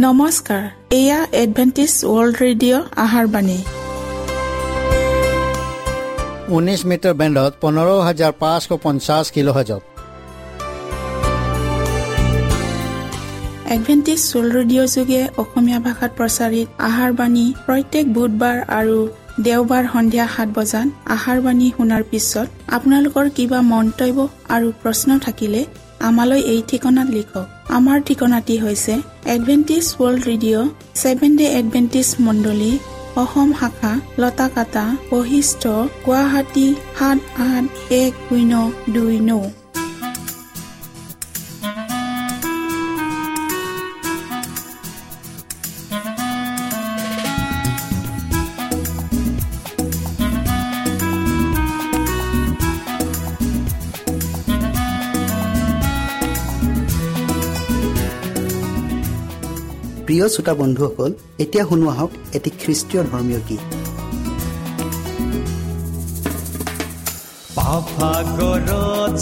নমস্কাৰ, এয়া Adventist world radio' আহাৰ বাণী। 19 মিটাৰ বেণ্ডত 15550 কিলোহাৰ্জত। এডভেণ্টিষ্ট ৱৰ্ল্ড ৰেডিঅ' যোগে অসমীয়া ভাষাত প্ৰচাৰিত আহাৰ বাণী প্ৰত্যেক বুধবাৰ আৰু দেওবাৰ সন্ধিয়া 7 বজাত আহাৰ বাণী শুনাৰ পিছত আপোনালোকৰ কিবা মন্তব্য আৰু প্ৰশ্ন থাকিলে আমালৈ এই ঠিকনাত লিখক। আমাৰ ঠিকনাটি হৈছে Adventist world radio, seven day Adventist মণ্ডলী, অসম শাখা, লতাকাটা, বশিষ্ঠ, গুৱাহাটী 781029। প্ৰিয় শ্ৰোতা বন্ধুসকল, এতিয়া শুনোৱা হওক এটি খ্ৰীষ্টীয় ধৰ্মীয় গীত। পাপাগৰত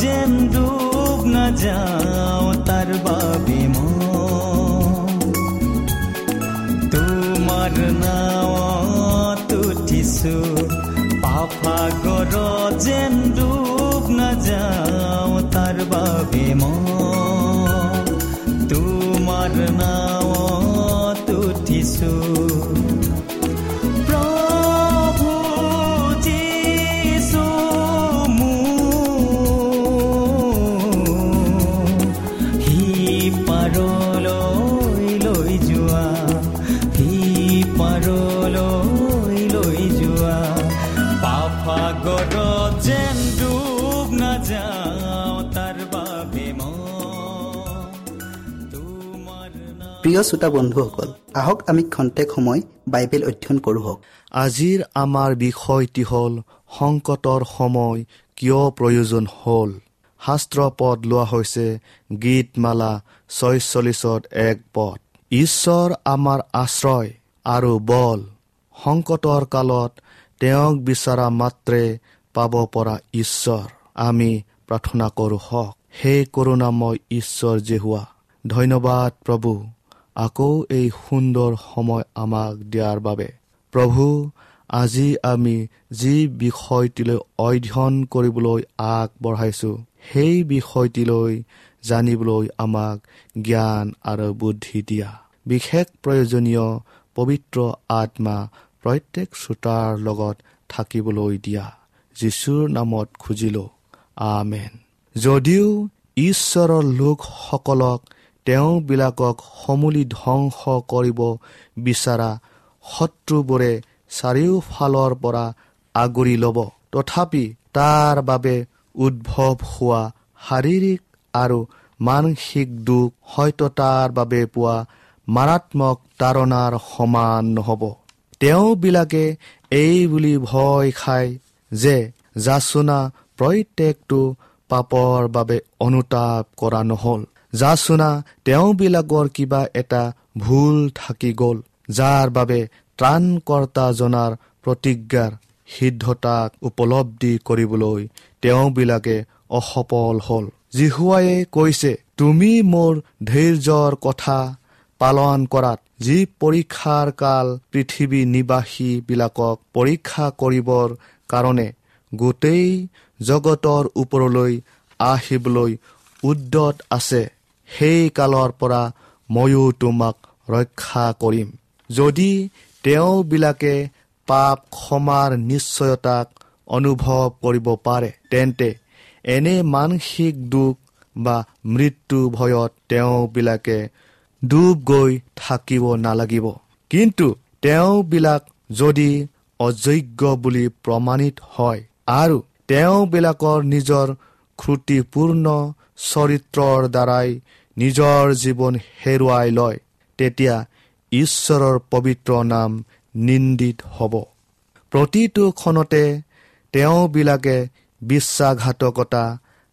যেন ডুব নাযাওঁ তাৰ বাবে মই তোমাৰ নাৱত উঠিছো, পাপাগৰত যেন ডুব নাযাওঁ তাৰ বাবে মই তোমাৰ নাৱত উঠিছো। প্ৰভু যীশু মোক সি পাৰলৈ লৈ যোৱা, সি পাৰলৈ লৈ যোৱা, পাপাগৰত যেন ডুব নাযাওঁ তাৰ বাবে মই। প্ৰিয় শ্ৰোতা বন্ধুসকল, আহক আমি খন্তেক সময় বাইবেল অধ্যয়ন কৰোঁ হওক। আজিৰ আমাৰ বিষয়টি হ'ল সংকটৰ সময় কিয় প্ৰয়োজন হ'ল। শাস্ত্ৰ পদ লোৱা হৈছে গীতমালা 46:1 পদ। ঈশ্বৰ আমাৰ আশ্ৰয় আৰু বল, সংকটৰ কালত তেওঁক বিচৰা মাত্ৰে পাব পৰা ঈশ্বৰ। আমি প্ৰাৰ্থনা কৰোঁ হওক। হে কৰোণাময় ঈশ্বৰ যিহোৱা, ধন্যবাদ প্ৰভু, আকৌ এই সুন্দৰ সময় আমাক দিয়াৰ বাবে। প্ৰভু, আজি আমি যি বিষয়টিলৈ অধ্যয়ন কৰিবলৈ আগবঢ়াইছোঁ, সেই বিষয়টিলৈ জানিবলৈ আমাক জ্ঞান আৰু বুদ্ধি দিয়া। বিশেষ প্ৰয়োজনীয় পবিত্ৰ আত্মা প্ৰত্যেক শ্ৰোতাৰ লগত থাকিবলৈ দিয়া। যীশুৰ নামত খুজিলোঁ, আমেন। যদিও ঈশ্বৰৰ লোকসকলক তেওঁবিলাকক সমূলি ধ্বংস কৰিব বিচৰা শত্ৰুবোৰে চাৰিওফালৰ পৰা আগুৰি ল'ব, তথাপি তাৰ বাবে উদ্ভৱ হোৱা শাৰীৰিক আৰু মানসিক দুখ হয়তো তাৰ বাবে পোৱা মাৰাত্মক তাৰণাৰ সমান নহ'ব। তেওঁবিলাকে এই বুলি ভয় খায় যে যাচনা প্ৰত্যেকটো পাপৰ বাবে অনুতাপ কৰা নহ'ল, যাচনা তেওঁবিলাকৰ কিবা এটা ভুল থাকি গ'ল, যাৰ বাবে ত্ৰাণকৰ্তাজনাৰ প্ৰতিজ্ঞাৰ সিদ্ধতাক উপলব্ধি কৰিবলৈ তেওঁবিলাকে অসফল হ'ল। যিহোৱাই কৈছে, তুমি মোৰ ধৈৰ্যৰ কথা পালন কৰাত যি পৰীক্ষাৰ কাল পৃথিৱী নিবাসীবিলাকক পৰীক্ষা কৰিবৰ কাৰণে গোটেই জগতৰ ওপৰলৈ আহিবলৈ উদ্যত আছে, সেই কালৰ পৰা ময়ো তোমাক ৰক্ষা কৰিম। যদি তেওঁবিলাকে পাপ ক্ষমাৰ নিশ্চয়তাক অনুভৱ কৰিব পাৰে, তেন্তে এনে মানসিক দুখ বা মৃত্যু ভয়ত তেওঁবিলাকে ডুব গৈ থাকিব নালাগিব। কিন্তু তেওঁবিলাক যদি অযোগ্য বুলি প্ৰমাণিত হয় আৰু তেওঁবিলাকৰ নিজৰ ত্ৰুটিপূৰ্ণ চৰিত্ৰৰ দ্বাৰাই নিজৰ জীৱন হেৰুৱাই লয়, তেতিয়া ঈশ্বৰৰ পবিত্ৰ নাম নিন্দিত হ'ব। প্ৰতিটো ক্ষণতে তেওঁবিলাকে বিশ্বাসঘাতকতা,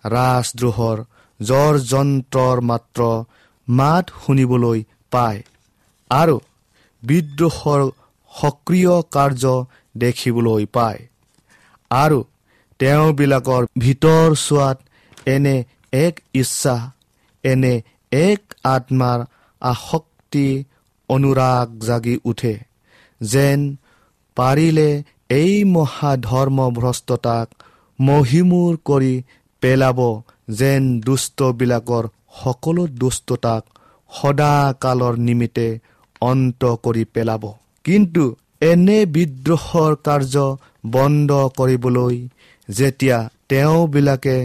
ৰাজদ্ৰোহৰ জ্বৰ যন্ত্ৰৰ মাত্ৰ মাত শুনিবলৈ পায় আৰু বিদ্ৰোহৰ সক্ৰিয় কাৰ্য দেখিবলৈ পায় আৰু তেওঁবিলাকৰ ভিতৰ চোৱাত এনে এক ইচ্ছা, এনে এক আত্মাৰ আসক্তি অনুৰাগ জাগি উঠে, যেন পাৰিলে এই মহাধৰ্মভ্ৰষ্টতাক মহিমূৰ কৰি পেলাব, যেন দুষ্টবিলাকৰ সকলো দুষ্টতাক সদাকালৰ নিমিত্তে অন্ত কৰি পেলাব। কিন্তু এনে বিদ্ৰোহৰ কাৰ্য বন্ধ কৰিবলৈ যেতিয়া তেওঁবিলাকে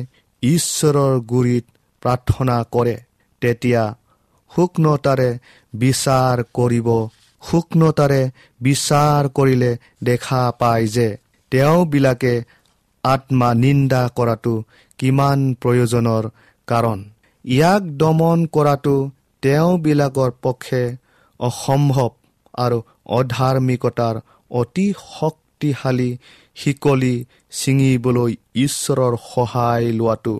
ঈশ্বৰৰ গুৰিত প্ৰাৰ্থনা কৰে, তেতিয়া সূক্ষ্মতাৰে বিচাৰ কৰিলে দেখা পায় যে তেওঁবিলাকে আত্মা নিন্দা কৰাটো কিমান প্ৰয়োজনৰ কাৰণ। ইয়াক দমন কৰাটো তেওঁবিলাকৰ পক্ষে অসম্ভৱ আৰু অধাৰ্মিকতাৰ অতি শক্তিশালী শিকলি ছিঙিবলৈ ঈশ্বৰৰ সহায় লোৱাটো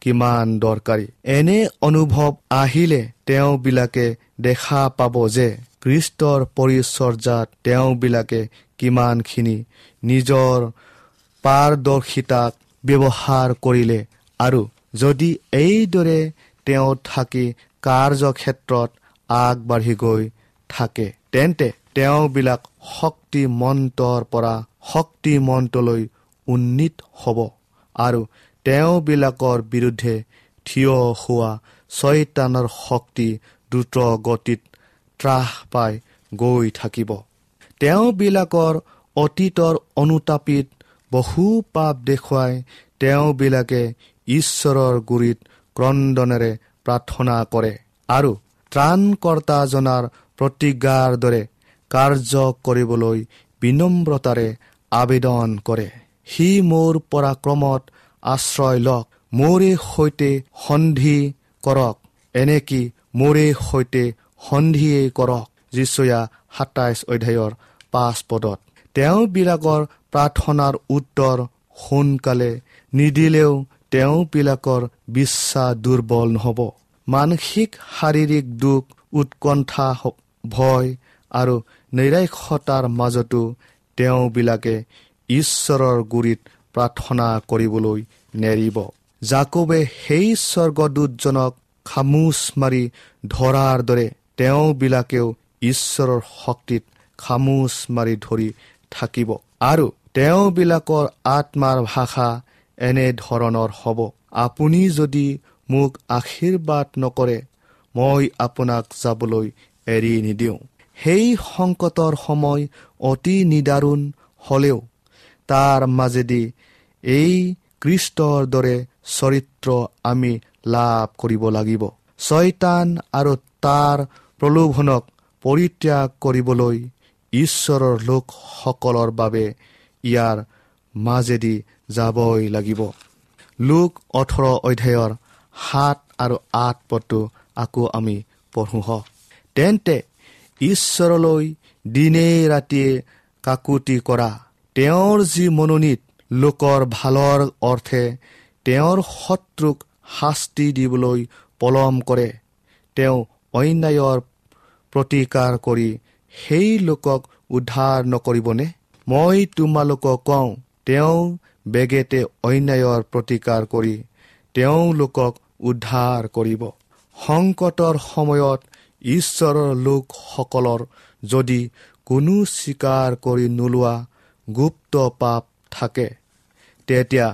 কিমান দৰকাৰী। এনে অনুভৱ আহিলে তেওঁবিলাকে দেখা পাব যে খ্ৰীষ্টৰ পৰিচৰ্যাত তেওঁবিলাকে কিমানখিনি নিজৰ পাৰদৰ্শিতাক ব্যৱহাৰ কৰিলে, আৰু যদি এইদৰে তেওঁ থাকি কাৰ্যক্ষেত্ৰত আগবাঢ়ি গৈ থাকে, তেন্তে তেওঁবিলাক শক্তিমন্তৰ পৰা শক্তিমন্তলৈ উন্নীত হ'ব আৰু তেওঁবিলাকৰ বিৰুদ্ধে থিয় হোৱা ছয়তানৰ শক্তি দ্ৰুত গতিত ত্ৰাস পাই গৈ থাকিব। তেওঁবিলাকৰ অতীতৰ অনুতাপিত বহু পাপ দেখুৱাই তেওঁবিলাকে ঈশ্বৰৰ গুৰিত ক্ৰন্দনেৰে প্ৰাৰ্থনা কৰে আৰু ত্ৰাণকৰ্তাজনাৰ প্ৰতিজ্ঞাৰ দৰে কাৰ্য কৰিবলৈ বিনম্ৰতাৰে আবেদন কৰে। সি মোৰ পৰাক্ৰমত আশ্ৰয় লওক, মোৰে সৈতে সন্ধি কৰক, এনেকি মোৰে সৈতে সন্ধিয়েই কৰক। যিচয়া 27 অধ্যায়ৰ 5 পদত। তেওঁবিলাকৰ প্ৰাৰ্থনাৰ উত্তৰ সোনকালে নিদিলেও তেওঁবিলাকৰ বিশ্বাস দুৰ্বল নহ'ব। মানসিক শাৰীৰিক দুখ, উৎকণ্ঠা, ভয় আৰু নৈৰাশ্যতাৰ মাজতো তেওঁবিলাকে ঈশ্বৰৰ গুৰিত প্ৰাৰ্থনা কৰিবলৈ নেৰিব। যাকোবে সেই স্বৰ্গদূতজনক খামোচ মাৰি ধৰাৰ দৰে তেওঁবিলাকেও ঈশ্বৰৰ শক্তিত খামোচ মাৰি ধৰি থাকিব আৰু তেওঁবিলাকৰ আত্মাৰ ভাষা এনেধৰণৰ হ'ব, আপুনি যদি মোক আশীৰ্বাদ নকৰে, মই আপোনাক যাবলৈ এৰি নিদিওঁ। সেই সংকটৰ সময় অতি নিদাৰুণ হ'লেও তাৰ মাজেদি এই খ্ৰীষ্টৰ দৰে চৰিত্ৰ আমি লাভ কৰিব লাগিব। ছয়তান আৰু তাৰ প্ৰলোভনক পৰিত্যাগ কৰিবলৈ ঈশ্বৰৰ লোকসকলৰ বাবে ইয়াৰ মাজেদি যাবই লাগিব। লোক 18 অধ্যায়ৰ 7 আৰু 8 পদটো আকৌ আমি পঢ়োঁ। তেন্তে ঈশ্বৰলৈ দিনে ৰাতিয়ে কাকুতি কৰা, তেওঁৰ যি মনোনীত লোকৰ ভালৰ অৰ্থে তেওঁৰ শত্ৰুক শাস্তি দিবলৈ পলম কৰে, তেওঁ অন্যায়ৰ প্ৰতিকাৰ কৰি সেই লোকক উদ্ধাৰ নকৰিবনে? মই তোমালোকক কওঁ, তেওঁ বেগেতে অন্যায়ৰ প্ৰতিকাৰ কৰি তেওঁলোকক উদ্ধাৰ কৰিব। সংকটৰ সময়ত ঈশ্বৰৰ লোকসকলৰ যদি কোনো স্বীকাৰ কৰি নোলোৱা গুপ্ত পাপ থাকে, তেতিয়া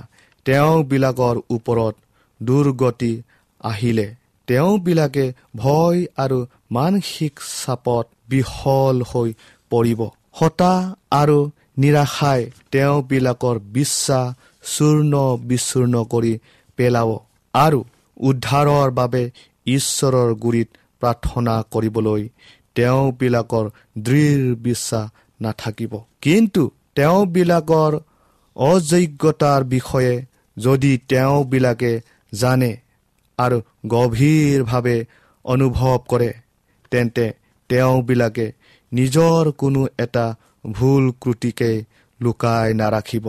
তেওঁবিলাকৰ ওপৰত দুৰ্গতি আহিলে তেওঁবিলাকে ভয় আৰু মানসিক চাপত বিহল হৈ পৰিব। হতাশ আৰু নিৰাশাই তেওঁবিলাকৰ বিশ্বাস চূৰ্ণ বিচূৰ্ণ কৰি পেলাব আৰু উদ্ধাৰৰ বাবে ঈশ্বৰৰ গুৰিত প্ৰাৰ্থনা কৰিবলৈ তেওঁবিলাকৰ দৃঢ় বিশ্বাস নাথাকিব। কিন্তু তেওঁবিলাকৰ অযোগ্যতাৰ বিষয়ে যদি তেওঁবিলাকে জানে আৰু গভীৰভাৱে অনুভৱ কৰে, তেন্তে তেওঁবিলাকে নিজৰ কোনো এটা ভুল ক্ৰুটিকে লুকাই নাৰাখিব।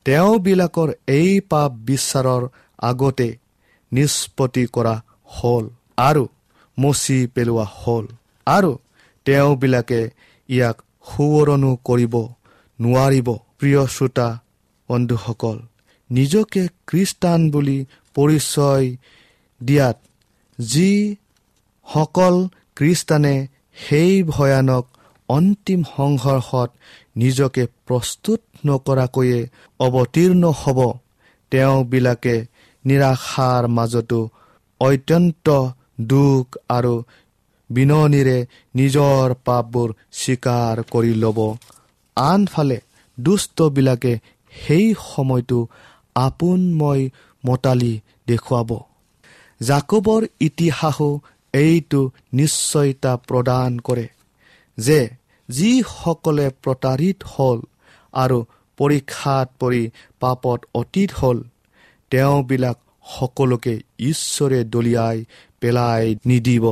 তেওঁবিলাকৰ এই পাপ বিচাৰৰ আগতে নিষ্পত্তি কৰা হ'ল আৰু মচি পেলোৱা হ'ল আৰু তেওঁবিলাকে ইয়াক সোঁৱৰণো কৰিব নোৱাৰিব। প্ৰিয় শ্ৰোতা বন্ধুসকল, নিজকে খ্ৰীষ্টান বুলি পৰিচয় দিয়াত যিসকল খ্ৰীষ্টানে সেই ভয়ানক অন্তিম সংঘৰ্ষত নিজকে প্ৰস্তুত নকৰাকৈয়ে অৱতীৰ্ণ হ'ব, তেওঁবিলাকে নিৰাশাৰ মাজতো অত্যন্ত দুখ আৰু বিননিৰে নিজৰ পাপবোৰ স্বীকাৰ কৰি ল'ব। আনফালে দুষ্টবিলাকে সেই সময়টো আপোনময় মতালি দেখুৱাব। যাকোবৰ ইতিহাসো এইটো নিশ্চয়তা প্ৰদান কৰে যে যিসকলে প্ৰতাৰিত হ'ল আৰু পৰীক্ষাত পৰি পাপত অতীত হ'ল, তেওঁবিলাক সকলোকে ঈশ্বৰে দলিয়াই পেলাই নিদিব,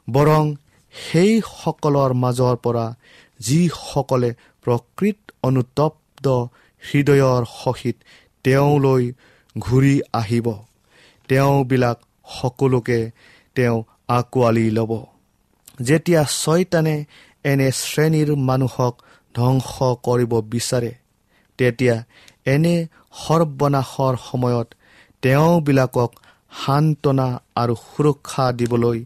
বৰং সেইসকলৰ মাজৰ পৰা যিসকলে প্ৰকৃত অনুতপ্ত হৃদয়ৰ সহিত তেওঁলৈ ঘূৰি আহিব, তেওঁবিলাক সকলোকে তেওঁ আঁকোৱালি ল'ব। যেতিয়া ছয়তানে এনে শ্ৰেণীৰ মানুহক ধ্বংস কৰিব বিচাৰে, তেতিয়া এনে সৰ্বনাশৰ সময়ত তেওঁবিলাকক সান্তনা আৰু সুৰক্ষা দিবলৈ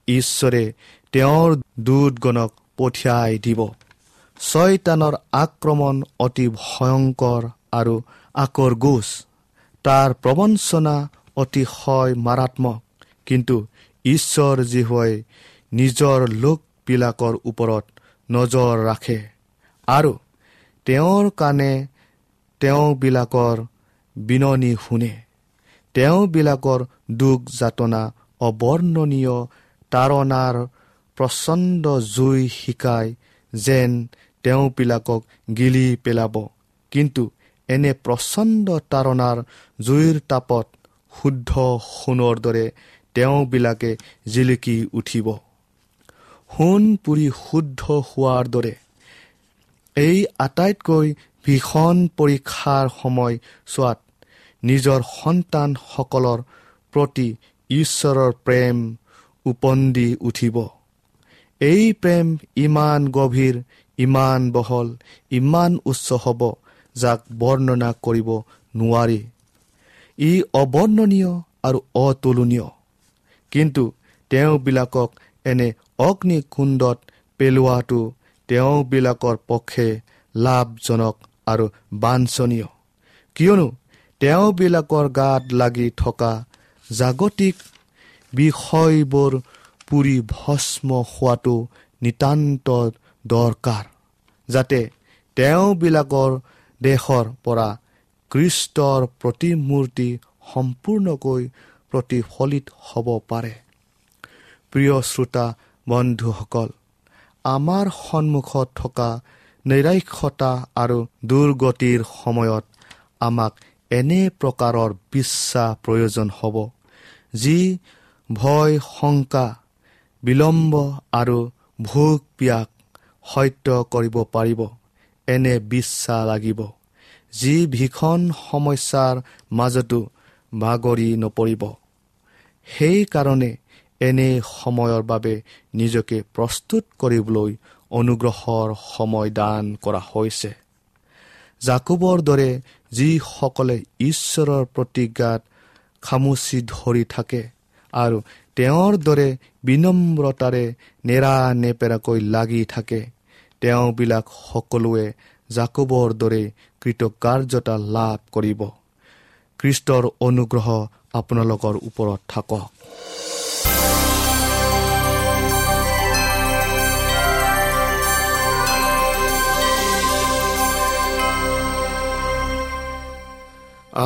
ঈশ্বৰে তেওঁৰ দূতগণক পঠিয়াই দিব। ছয়তানৰ আক্ৰমণ অতি ভয়ংকৰ আৰু আকৰগোজ, তাৰ প্ৰবঞ্চনা অতিশয় মাৰাত্মক। কিন্তু ঈশ্বৰ যিহোৱাই নিজৰ লোকবিলাকৰ ওপৰত নজৰ ৰাখে আৰু তেওঁৰ কাণে তেওঁবিলাকৰ বিননি শুনে। তেওঁবিলাকৰ দুখ যাতনা অবৰ্ণনীয় তাৰণাৰ প্ৰচণ্ড জুই শিকাই যেন তেওঁবিলাকক গিলি পেলাব, কিন্তু এনে প্ৰচণ্ড তাৰণাৰ জুইৰ তাপত শুদ্ধ সোণৰ দৰে তেওঁবিলাকে জিলিকি উঠিব। সোণ পুৰি শুদ্ধ হোৱাৰ দৰে এই আটাইতকৈ ভীষণ পৰীক্ষাৰ সময় চোৱাত নিজৰ সন্তানসকলৰ প্ৰতি ঈশ্বৰৰ প্ৰেম উপন্দি উঠিব। এই প্ৰেম ইমান গভীৰ, ইমান বহল, ইমান উচ্চ হ'ব, যাক বৰ্ণনা কৰিব নোৱাৰি। ই অবৰ্ণনীয় আৰু অতুলনীয়। কিন্তু তেওঁবিলাকক এনে অগ্নিকুণ্ডত পেলোৱাটো তেওঁবিলাকৰ পক্ষে লাভজনক আৰু বাঞ্ছনীয়, কিয়নো তেওঁবিলাকৰ গাত লাগি থকা জাগতিক বিষয়বোৰ পুৰি ভস্ম হোৱাটো নিতান্ত দৰকাৰ, যাতে তেওঁবিলাকৰ দেহৰ পৰা খ্ৰীষ্টৰ প্ৰতিমূৰ্তি সম্পূৰ্ণকৈ প্ৰতিফলিত হ'ব পাৰে। প্ৰিয় শ্ৰোতা বন্ধুসকল, আমাৰ সন্মুখত থকা নৈৰাশ্যতা আৰু দুৰ্গতিৰ সময়ত আমাক এনে প্ৰকাৰৰ বিশ্বাস প্ৰয়োজন হ'ব, যি ভয়, শংকা, বিলম্ব আৰু ভোক পিয়াক সত্য কৰিব পাৰিব। এনে বিশ্বাস লাগিব যি ভীষণ সমস্যাৰ মাজতো ভাগৰি নপৰিব। সেইকাৰণে এনে সময়ৰ বাবে নিজকে প্ৰস্তুত কৰিবলৈ অনুগ্ৰহৰ সময় দান কৰা হৈছে। যাকোবৰ দৰে যিসকলে ঈশ্বৰৰ প্ৰতিজ্ঞাত খামুচি ধৰি থাকে আৰু তেওঁৰ দৰে বিনম্ৰতাৰে নেৰানেপেৰাকৈ লাগি থাকে, তেওঁবিলাক সকলোৱে যাকোবৰ দৰে কৃতকাৰ্যতা লাভ কৰিব। খ্ৰীষ্টৰ অনুগ্ৰহ আপোনালোকৰ ওপৰত থাকক।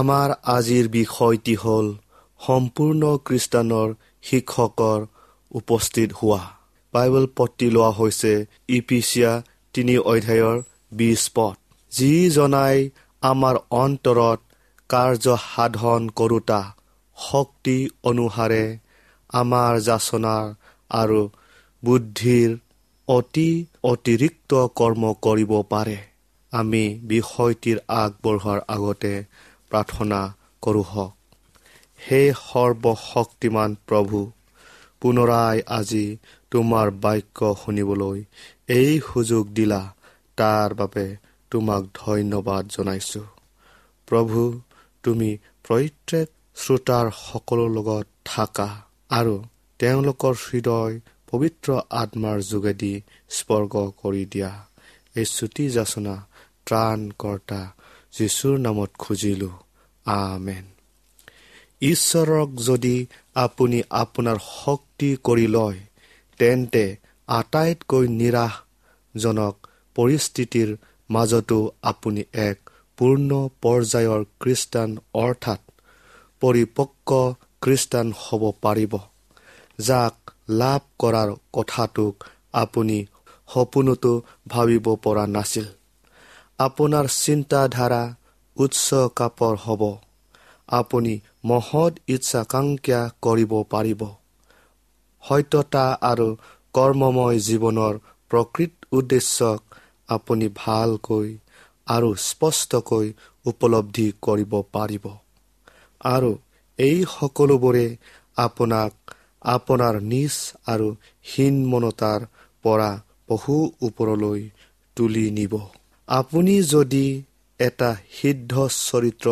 আমাৰ আজিৰ বিষয়টি হ'ল সম্পূৰ্ণ খ্ৰীষ্টানৰ শিক্ষকৰ উপস্থিত হোৱা। বাইবেল পদটি লোৱা হৈছে ইপিচিয়া 3 অধ্যায়ৰ 20 পদ। যিজনাই আমাৰ অন্তৰত কাৰ্য সাধন কৰোঁতা শক্তি অনুসাৰে আমাৰ যাচনাৰ আৰু বুদ্ধিৰ অতি অতিৰিক্ত কৰ্ম কৰিব পাৰে। আমি বিষয়টিৰ আগবঢ়োৱাৰ আগতে প্ৰাৰ্থনা কৰোঁ হওক। হে সৰ্বশক্তিমান প্ৰভু, পুনৰাই আজি তোমাৰ বাক্য শুনিবলৈ এই সুযোগ দিলা, তাৰ বাবে তোমাক ধন্যবাদ জনাইছোঁ। প্ৰভু, তুমি প্ৰত্যেক শ্ৰোতাৰ সকলো লগত থাকা আৰু তেওঁলোকৰ হৃদয় পবিত্ৰ আত্মাৰ যোগেদি স্পৰ্শ কৰি দিয়া। এই চুটি যাচনা ত্ৰাণকৰ্তা যীশুৰ নামত খুজিলোঁ, আমেন। ঈশ্বৰক যদি আপুনি আপোনাৰ শক্তি কৰি লয়, তেন্তে আটাইতকৈ নিৰাশজনক পৰিস্থিতিৰ মাজতো আপুনি এক পূৰ্ণ পৰ্যায়ৰ খ্ৰীষ্টান অৰ্থাৎ পৰিপক্ক খ্ৰীষ্টান হ'ব পাৰিব, যাক লাভ কৰাৰ কথাটোক আপুনি সপোনতো ভাবিব পৰা নাছিল। আপোনাৰ চিন্তাধাৰা উচ্চ কাপৰ হ'ব। আপুনি মহৎ ইচ্ছাকাংক্ষা কৰিব পাৰিব। সত্যতা আৰু কৰ্মময় জীৱনৰ প্ৰকৃত উদ্দেশ্যক আপুনি ভালকৈ আৰু স্পষ্টকৈ উপলব্ধি কৰিব পাৰিব, আৰু এই সকলোবোৰে আপোনাক আপোনাৰ নিজ আৰু হীনমনতাৰ পৰা বহু ওপৰলৈ তুলি নিব। আপুনি যদি এটা সিদ্ধ চৰিত্ৰ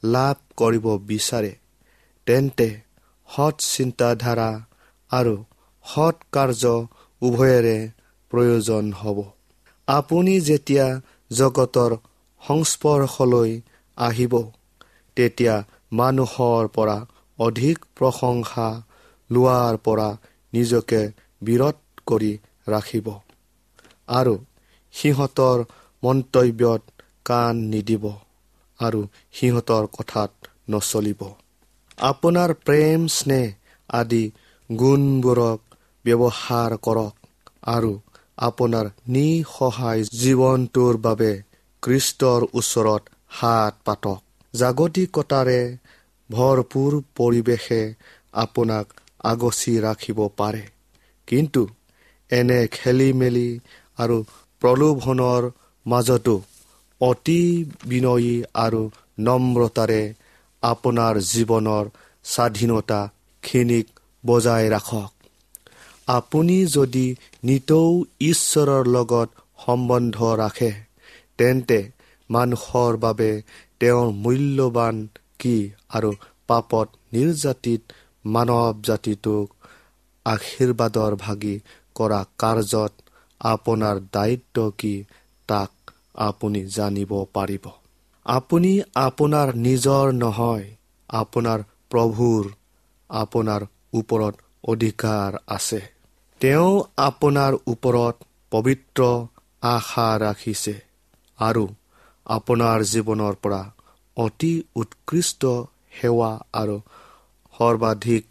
লাভ কৰিব বিচাৰে, তেন্তে সৎ চিন্তাধাৰা আৰু সৎ কাৰ্য উভয়ৰে প্ৰয়োজন হ'ব। আপুনি যেতিয়া জগতৰ সংস্পৰ্শলৈ আহিব, তেতিয়া মানুহৰ পৰা অধিক প্ৰশংসা লোৱাৰ পৰা নিজকে বিৰত কৰি ৰাখিব আৰু সিহঁতৰ মন্তব্যত কাণ নিদিব আৰু সিহঁতৰ কথাত নচলিব। আপোনাৰ প্ৰেম, স্নেহ আদি গুণবোৰক ব্যৱহাৰ কৰক আৰু আপোনাৰ নিঃসহায় জীৱনটোৰ বাবে খ্ৰীষ্টৰ ওচৰত হাত পাতক। জাগতিকতাৰে ভৰপূৰ পৰিৱেশে আপোনাক আগচি ৰাখিব পাৰে, কিন্তু এনে খেলি মেলি আৰু প্ৰলোভনৰ মাজতো অতি বিনয়ী আৰু নম্ৰতাৰে আপোনাৰ জীৱনৰ স্বাধীনতাখিনিক বজাই ৰাখক। আপুনি যদি নিতৌ ঈশ্বৰৰ লগত সম্বন্ধ ৰাখে, তেন্তে মানুহৰ বাবে তেওঁৰ মূল্যৱান কি আৰু পাপত নিৰ্যাতিত মানৱ জাতিটোক আশীৰ্বাদৰ ভাগি কৰা কাৰ্যত আপোনাৰ দায়িত্ব কি তাক আপুনি জানিব পাৰিব। আপুনি আপোনাৰ নিজৰ নহয়, আপোনাৰ প্ৰভুৰ আপোনাৰ ওপৰত অধিকাৰ আছে। তেওঁ আপোনাৰ ওপৰত পবিত্ৰ আশা ৰাখিছে আৰু আপোনাৰ জীৱনৰ পৰা অতি উৎকৃষ্ট সেৱা আৰু সৰ্বাধিক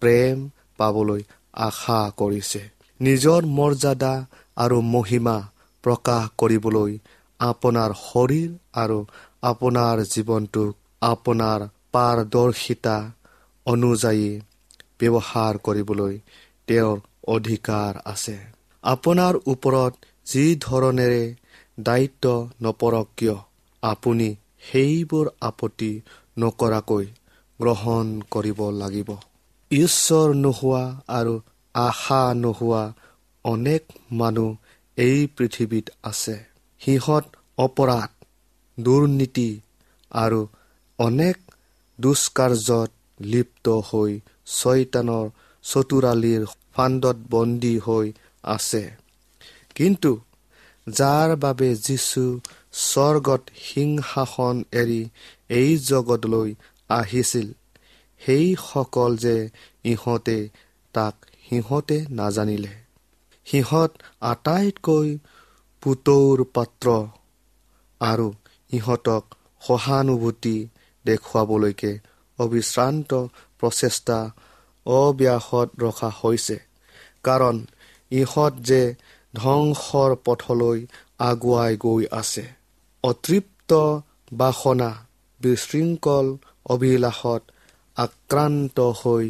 প্ৰেম পাবলৈ আশা কৰিছে। নিজৰ মৰ্যাদা আৰু মহিমা প্ৰকাশ কৰিবলৈ আপোনাৰ শৰীৰ আৰু আপোনাৰ জীৱনটোক আপোনাৰ পাৰদৰ্শিতা অনুযায়ী ব্যৱহাৰ কৰিবলৈ তেওঁৰ অধিকাৰ আছে। আপোনাৰ ওপৰত যি ধৰণেৰে দায়িত্ব নপৰক কিয়, আপুনি সেইবোৰ আপত্তি নকৰাকৈ গ্ৰহণ কৰিব লাগিব। ঈশ্বৰ নোহোৱা আৰু আশা নোহোৱা অনেক মানুহ এই পৃথিৱীত আছে। সিহঁত অপৰাধ, দুৰ্নীতি আৰু অনেক দুষ্কাৰ্যত লিপ্ত হৈ ছয়তানৰ চতুৰালিৰ ফান্দত বন্দী হৈ আছে। কিন্তু যাৰ বাবে যীশু স্বৰ্গত সিংহাসন এৰি এই জগতলৈ আহিছিল, সেইসকল যে ইহঁতে তাক সিহঁতে নাজানিলে। সিহঁত আটাইতকৈ পুতৌৰ পাত্ৰ আৰু ইহঁতক সহানুভূতি দেখুৱাবলৈকে অবিশ্ৰান্ত প্ৰচেষ্টা অব্যাহত ৰখা হৈছে, কাৰণ ইহঁত যে ধ্বংসৰ পথলৈ আগুৱাই গৈ আছে। অতৃপ্ত বাসনা, বিশৃংখল অভিলাষত আক্ৰান্ত হৈ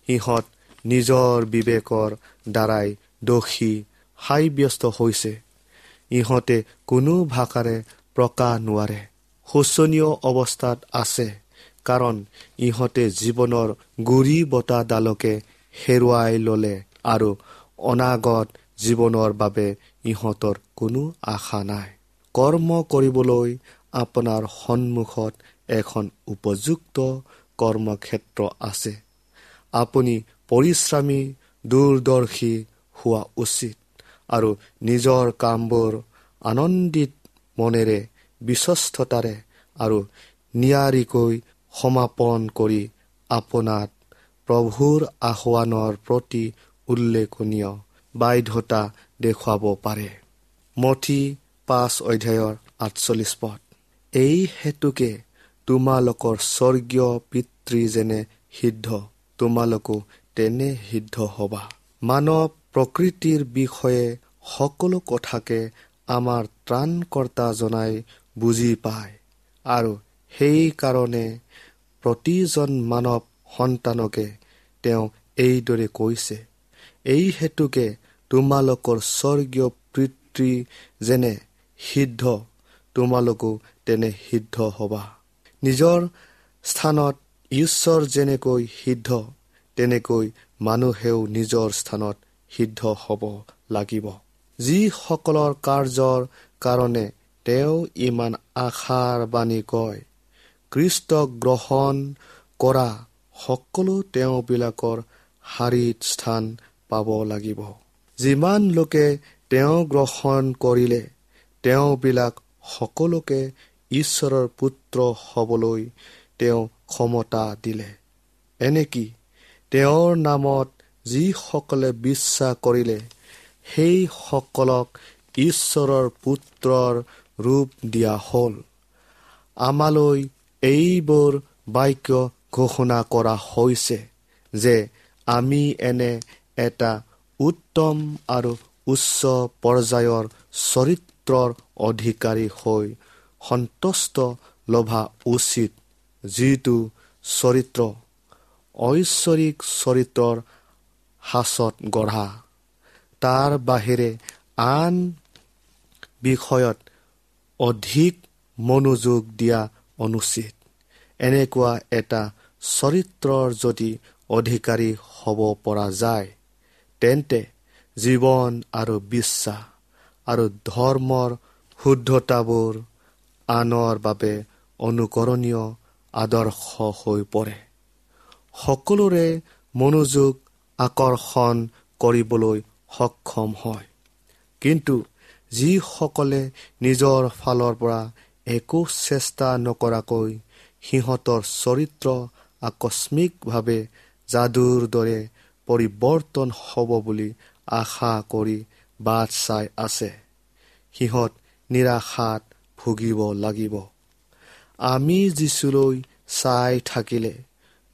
সিহঁত নিজৰ বিবেকৰ দ্বাৰাই দোষী সাব্যস্ত হৈছে। ইহঁতে কোনো ভাষাৰে প্ৰকাশ নোৱাৰে, শোচনীয় অৱস্থাত আছে, কাৰণ ইহঁতে জীৱনৰ গুৰি বতাহডালকে হেৰুৱাই ল'লে আৰু অনাগত জীৱনৰ বাবে ইহঁতৰ কোনো আশা নাই। কৰ্ম কৰিবলৈ আপোনাৰ সন্মুখত এখন উপযুক্ত কৰ্মক্ষেত্ৰ আছে। আপুনি পৰিশ্ৰমী, দূৰদৰ্শী, হোৱা উচিত আৰু নিজৰ কামবোৰ আনন্দিত মনেৰে, বিশ্বস্ততাৰে আৰু নিয়াৰিকৈ সমাপন কৰি আপোনাত প্ৰভুৰ আহ্বানৰ প্ৰতি উল্লেখনীয় বাধ্যতা দেখুৱাব পাৰে। মথি 5 অধ্যায়ৰ 48 পদ। এই হেতুকে তোমালোকৰ স্বৰ্গীয় পিতৃ যেনে সিদ্ধ, তোমালোকো তেনে সিদ্ধ হবা। মানৱ প্ৰকৃতিৰ বিষয়ে সকলো কথাকে আমাৰ ত্ৰাণকৰ্তা জনাই বুজি পায় আৰু সেইকাৰণে প্ৰতিজন মানৱ সন্তানকে তেওঁ এইদৰে কৈছে, এই হেতুকে তোমালোকৰ স্বৰ্গীয় পিতৃ যেনে সিদ্ধ, তোমালোকো তেনে সিদ্ধ হবা। নিজৰ স্থানত ঈশ্বৰ যেনেকৈ সিদ্ধ, তেনেকৈ মানুহেও নিজৰ স্থানত সিদ্ধ হ'ব লাগিব। যিসকলৰ কাৰ্যৰ কাৰণে তেওঁ ইমান আশাৰ বাণী কয়, খ্ৰীষ্টক গ্ৰহণ কৰা সকলো তেওঁবিলাকৰ শাৰীত স্থান পাব লাগিব। যিমান লোকে তেওঁ গ্ৰহণ কৰিলে, তেওঁবিলাক সকলোকে ঈশ্বৰৰ পুত্ৰ হ'বলৈ তেওঁ ক্ষমতা দিলে। এনেকি তেওঁৰ নামত যিসকলে বিশ্বাস কৰিলে, সেইসকলক ঈশ্বৰৰ পুত্ৰৰ ৰূপ দিয়া হ'ল। আমালৈ এইবোৰ বাক্য ঘোষণা কৰা হৈছে যে আমি এনে এটা উত্তম আৰু উচ্চ পৰ্যায়ৰ চৰিত্ৰৰ অধিকাৰী হৈ সন্তুষ্ট লভা উচিত, যিটো চৰিত্ৰ ঐশ্বৰিক চৰিত্ৰৰ সাঁচত গঢ়া। তাৰ বাহিৰে আন বিষয়ত অধিক মনোযোগ দিয়া অনুচিত। এনেকুৱা এটা চৰিত্ৰৰ যদি অধিকাৰী হ'ব পৰা যায়, তেন্তে জীৱন আৰু বিশ্বাস আৰু ধৰ্মৰ শুদ্ধতাবোৰ আনৰ বাবে অনুকৰণীয় আদৰ্শ হৈ পৰে। সকলোৰে মনোযোগ আকৰ্ষণ কৰিবলৈ সক্ষম হয়। কিন্তু যিসকলে নিজৰ ফালৰ পৰা একো চেষ্টা নকৰাকৈ সিহঁতৰ চৰিত্ৰ আকস্মিকভাৱে যাদুৰ দৰে পৰিৱৰ্তন হ'ব বুলি আশা কৰি বাট চাই আছে, সিহঁত নিৰাশাত ভুগিব লাগিব। আমি যীচুলৈ চাই থাকিলে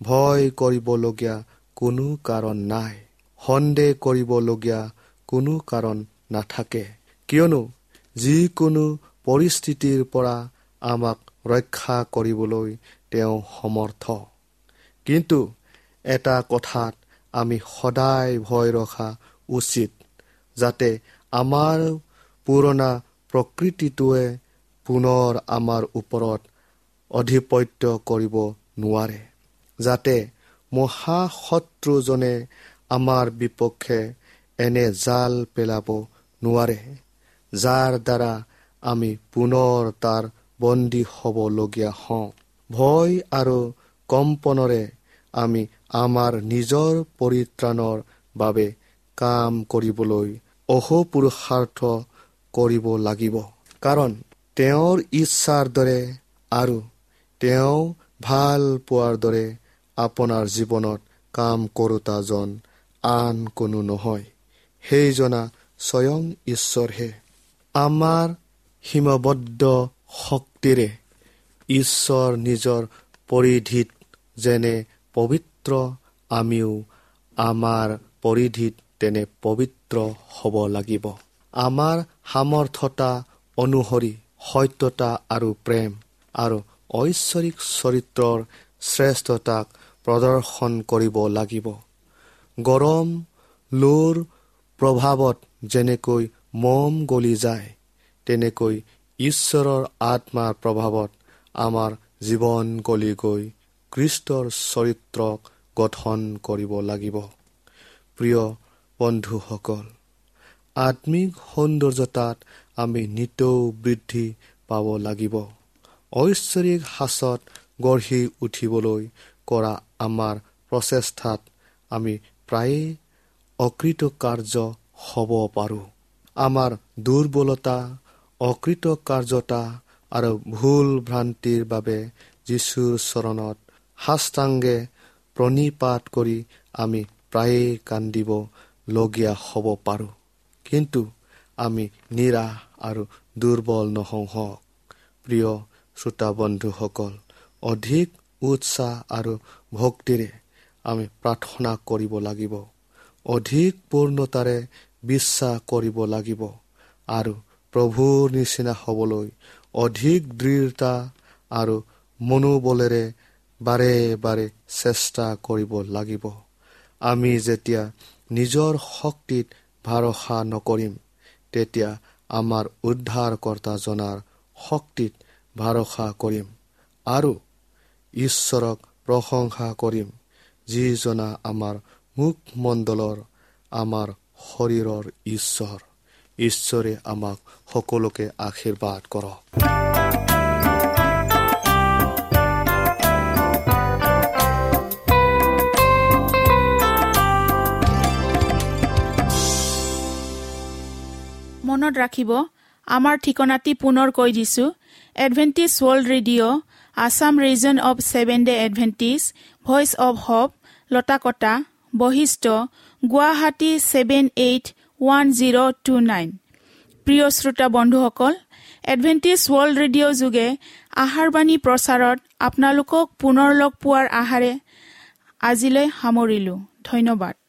ভয় কৰিবলগীয়া কোনো কাৰণ নাই, সন্দেহ কৰিবলগীয়া কোনো কাৰণ নাথাকে, কিয়নো যিকোনো পৰিস্থিতিৰ পৰা আমাক ৰক্ষা কৰিবলৈ তেওঁ সমৰ্থ। কিন্তু এটা কথাত আমি সদায় ভয় ৰখা উচিত, যাতে আমাৰ পুৰণা প্ৰকৃতিটোৱে পুনৰ আমাৰ ওপৰত আধিপত্য কৰিব নোৱাৰে, যাতে মহাশত্ৰুজনে আমাৰ বিপক্ষে এনে জাল পেলাব নোৱাৰে, যাৰ দ্বাৰা আমি পুনৰ তাৰ বন্দী হ'বলগীয়া হওঁ। ভয় আৰু কম্পনৰে আমি আমাৰ নিজৰ পৰিত্ৰাণৰ বাবে কাম কৰিবলৈ অহোপুৰুষাৰ্থ কৰিব লাগিব, কাৰণ তেওঁৰ ইচ্ছাৰ দৰে আৰু তেওঁ ভাল পোৱাৰ দৰে আপোনাৰ জীৱনত কাম কৰোঁতাজন আন কোনো নহয়, সেইজনা স্বয়ং ঈশ্বৰহে। আমাৰ সীমাবদ্ধ শক্তিৰে ঈশ্বৰ নিজৰ পৰিধিত যেনে পবিত্ৰ, আমিও আমাৰ পৰিধিত তেনে পবিত্ৰ হ'ব লাগিব। আমাৰ সামৰ্থ্যতা অনুসৰি সত্যতা আৰু প্ৰেম আৰু ঐশ্বৰিক চৰিত্ৰৰ শ্ৰেষ্ঠতাক প্ৰদৰ্শন কৰিব লাগিব। গৰম লোৰ প্ৰভাৱত যেনেকৈ মম গলি যায়, তেনেকৈ ঈশ্বৰৰ আত্মাৰ প্ৰভাৱত আমাৰ জীৱন গলি গৈ খ্ৰীষ্টৰ চৰিত্ৰক গঠন কৰিব লাগিব। প্ৰিয় বন্ধুসকল, আত্মিক সৌন্দৰ্যতাত আমি নিতৌ বৃদ্ধি পাব লাগিব। ঐশ্বৰিক সাঁচত গঢ়ি উঠিবলৈ কৰা আমাৰ প্ৰচেষ্টাত আমি প্ৰায়ে অকৃতকাৰ্য হ'ব পাৰোঁ। আমাৰ দুৰ্বলতা, অকৃতকাৰ্যতা আৰু ভুল ভ্ৰান্তিৰ বাবে যীশুৰ চৰণত সাষ্টাংগে প্ৰণিপাত কৰি আমি প্ৰায়ে কান্দিব লগীয়া হ'ব পাৰোঁ, কিন্তু আমি নিৰাশ আৰু দুৰ্বল নহওঁ হওক। প্ৰিয় শ্ৰোতা বন্ধুসকল, অধিক উৎসাহ আৰু ভক্তিৰে আমি প্ৰাৰ্থনা কৰিব লাগিব, অধিক পূৰ্ণতাৰে বিশ্বাস কৰিব লাগিব আৰু প্ৰভুৰ নিচিনা হ'বলৈ অধিক দৃঢ়তা আৰু মনোবলেৰে বাৰে বাৰে চেষ্টা কৰিব লাগিব। আমি যেতিয়া নিজৰ শক্তিত ভৰসা নকৰিম, তেতিয়া আমাৰ উদ্ধাৰকৰ্তাজনাৰ শক্তিত ভৰসা কৰিম আৰু ঈশ্বৰক প্ৰশংসা কৰিম, যিজনা আমাৰ মুখমণ্ডলৰ, আমাৰ শৰীৰৰ ঈশ্বৰ। ঈশ্বৰে আমাক সকলোকে আশীৰ্বাদ কৰক। মনত ৰাখিব, আমাৰ ঠিকনাটি পুনৰ কৈ দিছো। Adventist World Radio, Assam Region of Seven Day Adventist, Voice of Hope, Latakata, Basistha, Guwahati 781029। প্ৰিয় শ্ৰোতা বন্ধুসকল, এডভেণ্টিষ্ট ৱৰ্ল্ড ৰেডিঅ' যোগে আহাৰবাণী প্ৰচাৰত আপোনালোকক পুনৰ লগ পোৱাৰ আশাৰে আজিলৈ সামৰিলোঁ। ধন্যবাদ।